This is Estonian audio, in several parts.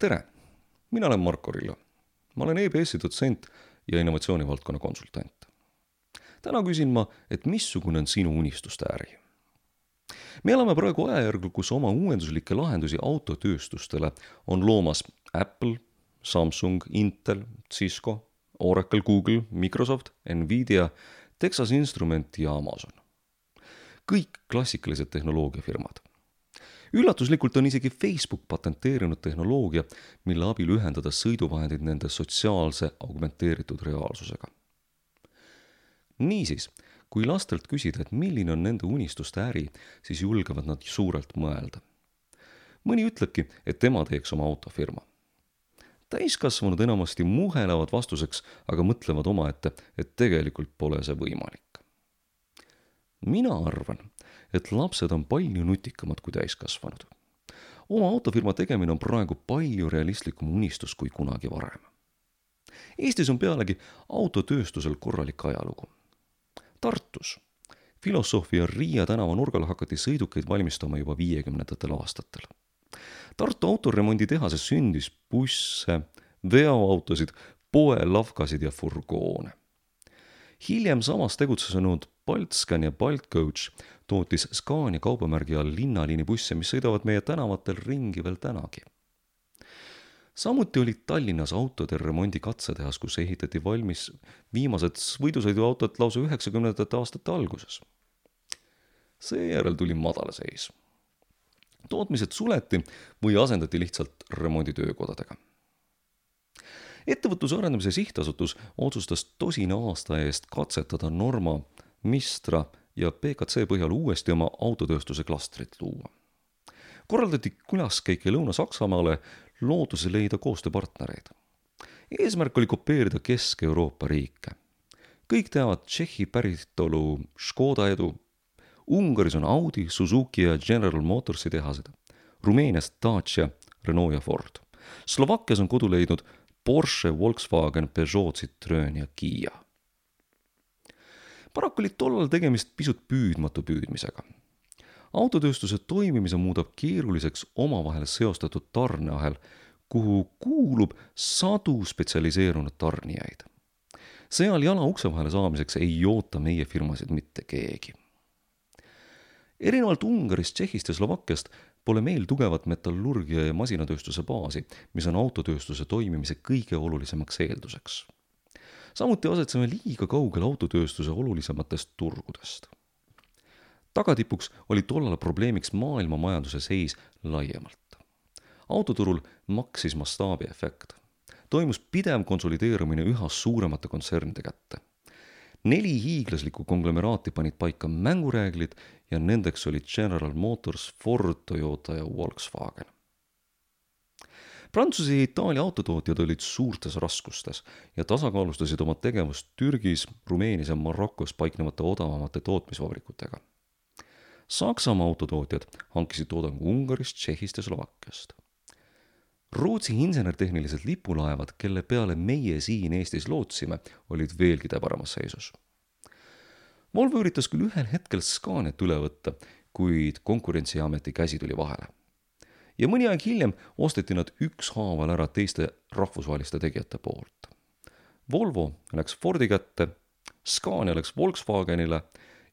Tere! Mina olen Marko Rillo. Ma olen EBS-i dotsent ja innovatsioonivaldkonna konsultant. Täna küsin ma, et missugune on sinu unistuste äri? Me elame praegu ajajärgul, kus oma uuenduslikke lahendusi autotööstustele on loomas Apple, Samsung, Intel, Cisco, Oracle, Google, Microsoft, Nvidia, Texas Instrument ja Amazon. Kõik klassikalised tehnoloogiafirmad. Üllatuslikult on isegi Facebook patenteerinud tehnoloogia, mille abil ühendada sõiduvahendid nende sotsiaalse augmenteeritud reaalsusega. Niisiis, kui lastelt küsida, et milline on nende unistuste äri, siis julgevad nad suurelt mõelda. Mõni ütlebki, et tema teeks oma autofirma. Täiskasvanud enamasti muhelevad vastuseks, aga mõtlevad omaette, et tegelikult pole see võimalik. Mina arvan, et lapsed on palju nutikamad kui täiskasvanud. Oma autofirma tegemine on praegu palju realistlikum unistus kui kunagi varem. Eestis on pealegi autotööstusel korralik ajalugu. Tartus Filosofia Riia tänava nurgal hakati sõidukeid valmistama juba 50ndatel aastatel. Tartu autoremonditehases sündis busse, veoautosid, poelavkasid ja furgoone. Hiljem samas tegutsenud Baltscan ja Baltcoach tootis Scania kaubamärgi all linnaliini busse, mis sõidavad meie tänavatel ringi veel tänagi. Samuti oli Tallinnas autode remondi katsetehas, kus ehitati valmis viimased võidusõiduautod lausa 90ndate aastate alguses. Seejärel tuli madalseis. Tootmised suleti või asendati lihtsalt remonditöökodadega. Ettevõtluse arendamise sihtasutus otsustas 10 aasta eest katsetada Norma, Mistra ja PKC põhjal uuesti oma autotööstuse klastrit luua. Korraldati külaskäike Lõuna-Saksamaale looduse leida koostööpartnereid. Eesmärk oli kopeerida Kesk-Euroopa riike. Kõik teavad Tšehhi päritolu Škoda edu. Ungaris on Audi, Suzuki ja General Motorsi tehased. Rumeenias Dacia, Renault ja Ford. Slovakkias on kodu leidnud Porsche, Volkswagen, Peugeot, Citroen ja Kia. Paraku oli tollal tegemist pisut püüdmatu püüdmisega. Autotööstuse toimimise muudab keeruliseks omavahel seostatud tarneahel, kuhu kuulub sadu spetsialiseerunud tarnijaid. Seal jala ukse vahele saamiseks ei oota meie firmasid mitte keegi. Erinevalt Ungarist, Tšehhist ja Slovakkiast pole meil tugevat metallurgia ja masinatööstuse baasi, mis on autotööstuse toimimise kõige olulisemaks eelduseks. Samuti asetseme liiga kaugel autotööstuse olulisematest turgudest. Tagatipuks oli tollal probleemiks maailma majanduse seis laiemalt. Autoturul maksis mastaabiefekt. Toimus pidev konsolideerumine üha suuremate kontsernide kätte. 4 hiiglaslikku konglomeraati panid paika mängureeglid ja nendeks olid General Motors, Ford, Toyota ja Volkswagen. Prantsuse ja Itaalia autotootjad olid suurtes raskustes ja tasakaalustasid oma tegevust Türgis, Rumeenias ja Marokos paiknevate odavamate tootmisvabrikutega. Saksamaa autotootjad hankisid toodangu Ungarist, Tšehhist ja Slovakkiast. Rootsi insenertehnilised lipulaevad, kelle peale meie siin Eestis lootsime, olid veelgi täbaramas seisus. Volvo üritas küll ühel hetkel Scaniat üle võtta, kuid Konkurentsiameti käsi tuli vahele. Ja mõni aeg hiljem osteti nad ükshaaval ära teiste rahvusvaheliste tegijate poolt. Volvo läks Fordi kätte, Scania läks Volkswagenile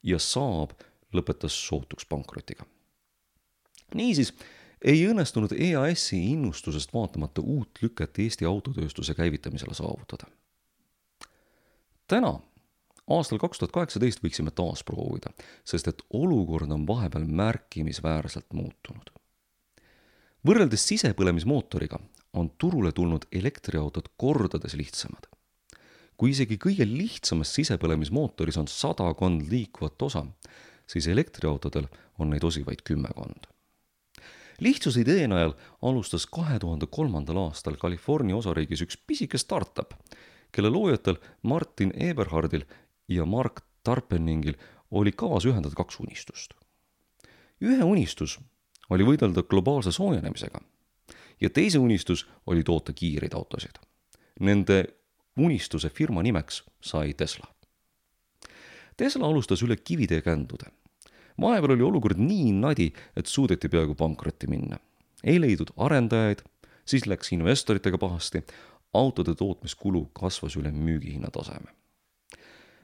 ja Saab lõpetas sootuks pankrotiga. Niisiis, ei õnnestunud EAS-i innustusest vaatamata uut lüket Eesti autotööstuse käivitamisele saavutada. Täna, aastal 2018 võiksime taas proovida, sest et olukord on vahepeal märkimisväärselt muutunud. Võrreldes sisepõlemismootoriga on turule tulnud elektriautod kordades lihtsamad. Kui isegi kõige lihtsamas sisepõlemismootoris on 100 liikuvat osa, siis elektriautodel on neid osi vaid 10. Lihtsuse idee najal alustas 2003. aastal California osariigis üks pisike startup, kelle loojatel Martin Eberhardil ja Mark Tarpeningil oli kavas ühendada 2 unistust. Ühe unistus oli võidelda globaalse soojenemisega ja teise unistus oli toota kiireid autosid. Nende unistuse firma nimeks sai Tesla. Tesla alustas üle kivide ja kändude. Vahepeal oli olukord nii nadi, et suudeti peaaegu pankrotti minna. Ei leidnud arendajaid, siis läks investoritega pahasti, autode tootmiskulu kasvas üle müügihinna taseme.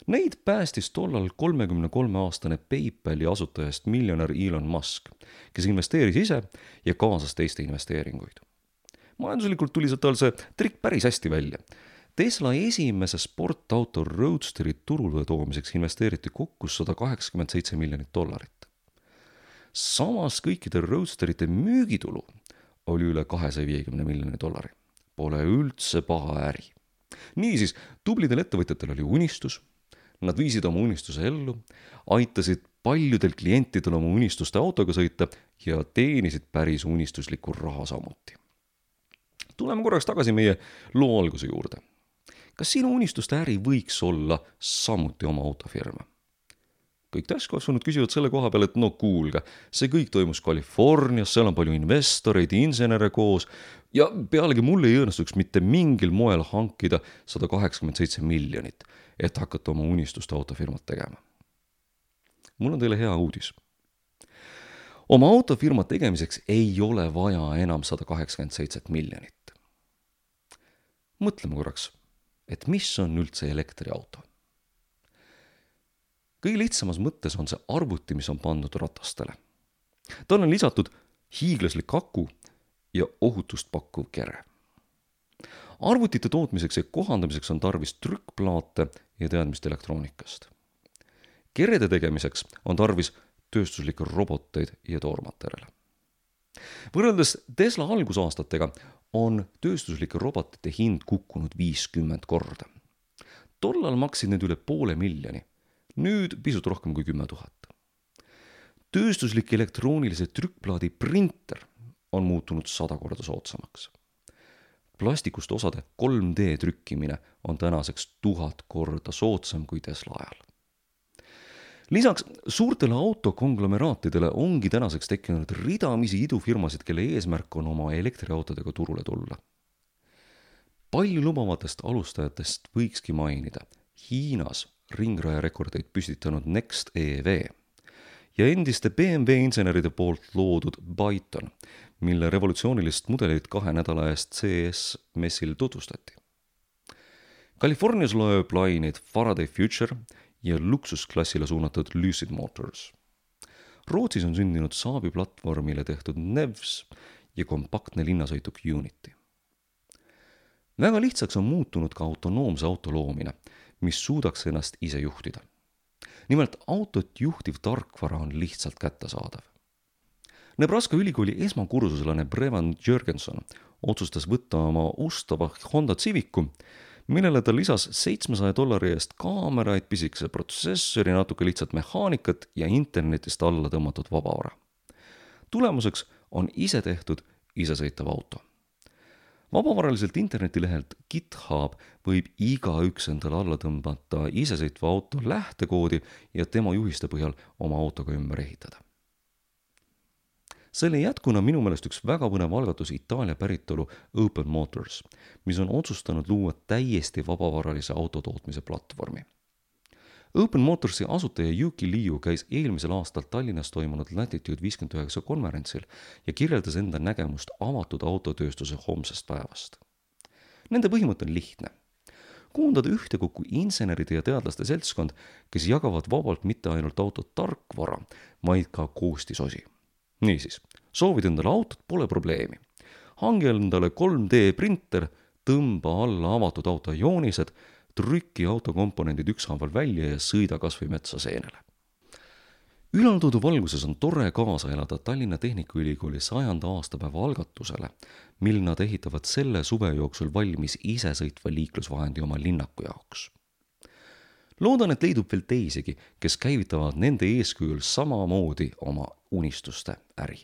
Neid päästis tollal 33-aastane PayPali asutajast miljonär Elon Musk, kes investeeris ise ja kaasas teiste investeeringuid. Majanduslikult tuli tal see trikk päris hästi välja. Tesla esimese sportauto Roadsteri turule toomiseks investeeriti kokku $187 miljonit. Samas kõikide Roadsterite müügitulu oli üle $250 miljoni. Pole üldse paha äri. Niisiis, tublidel ettevõtjatel oli unistus, nad viisid oma unistuse ellu, aitasid paljudel klientidel oma unistuste autoga sõita ja teenisid päris unistuslikku raha samuti. Tuleme korraks tagasi meie loo alguse juurde. Kas sinu unistuste äri võiks olla samuti oma autofirma? Kõik täiskasvanud küsivad selle koha peal, et no kuulge, see kõik toimus Californias, seal on palju investoreid, insenere koos ja pealegi mul ei õnnestuks mitte mingil moel hankida $187 miljonit, et hakata oma unistuste autofirmat tegema. Mul on teile hea uudis. Oma autofirma tegemiseks ei ole vaja enam $187 miljonit. Mõtleme korraks, et mis on üldse elektriauto? Kõige lihtsamas mõttes on see arvuti, mis on pandud ratastele. Tal on lisatud hiiglaslik aku ja ohutust pakkuv kere. Arvutite tootmiseks ja kohandamiseks on tarvis trükkplaate ja teadmist elektroonikast. Kerede tegemiseks on tarvis tööstuslikke roboteid ja toormaterjale. Võrreldes Tesla algusaastatega on tööstuslike robotite hind kukkunud 50 korda. Tollal maksid need üle $500,000, nüüd pisut rohkem kui 10 000. Tööstuslik elektroonilise trükkplaadi printer on muutunud 100 korda soodsamaks. Plastikust osade 3D trükkimine on tänaseks 1000 korda soodsam kui Tesla ajal. Lisaks suurtele autokonglomeraatidele ongi tänaseks tekkinud ridamisi idufirmasid, kelle eesmärk on oma elektriautodega turule tulla. Palju lubavatest alustajatest võikski mainida Hiinas ringraja rekordeid püstitanud Next EV ja endiste BMW inseneride poolt loodud Byton, mille revolutsioonilist mudelit 2 nädala eest CES messil tutvustati. Californias lööb laineid Faraday Future ja luksusklassile suunatud Lucid Motors. Rootsis on sündinud Saabi platvormile tehtud Nevs ja kompaktne linnasõituk Unity. Väga lihtsaks on muutunud ka autonoomse auto loomine, mis suudaks ennast ise juhtida. Nimelt autot juhtiv tarkvara on lihtsalt kättesaadav. Nebraska ülikooli esmakursuslane Brevan Jürgenson otsustas võtta oma ustava Honda Civicu, millele ta lisas $700 eest kaameraid, pisikese protsessori, natuke lihtsalt mehaanikat ja internetist alla tõmmatud vabavara. Tulemuseks on ise tehtud isesõitav auto. Vabavaraliselt internetilehelt GitHub võib igaüks endale alla tõmbata isesõitva auto lähtekoodi ja tema juhiste põhjal oma autoga ümber ehitada. Selle jätkuna minu meelest üks väga põnev algatus Itaalia päritolu Open Motors, mis on otsustanud luua täiesti vabavaralise autotootmise platvormi. Open Motorsi asutaja Yuki Liu käis eelmisel aastal Tallinnas toimunud Latitude 59 konverentsil ja kirjeldas enda nägemust avatud autotööstuse homsest päevast. Nende põhimõte on lihtne. Koondada ühtekokku inseneride ja teadlaste seltskond, kes jagavad vabalt mitte ainult auto tarkvara, vaid ka koostisosi. Niisiis, soovid endale autot, pole probleemi. Hangi endale 3D printer, tõmba alla avatud auto joonised, trükki autokomponendid ükshaaval välja ja sõida kas või metsa seenele. Ülaltoodu valguses on tore kaasa elada Tallinna Tehnikaülikooli 100. aastapäeva algatusele, mil nad ehitavad selle suve jooksul valmis isesõitva liiklusvahendi oma linnaku jaoks. Loodan, et leidub veel teisigi, kes käivitavad nende eeskujul samamoodi oma unistuste äri.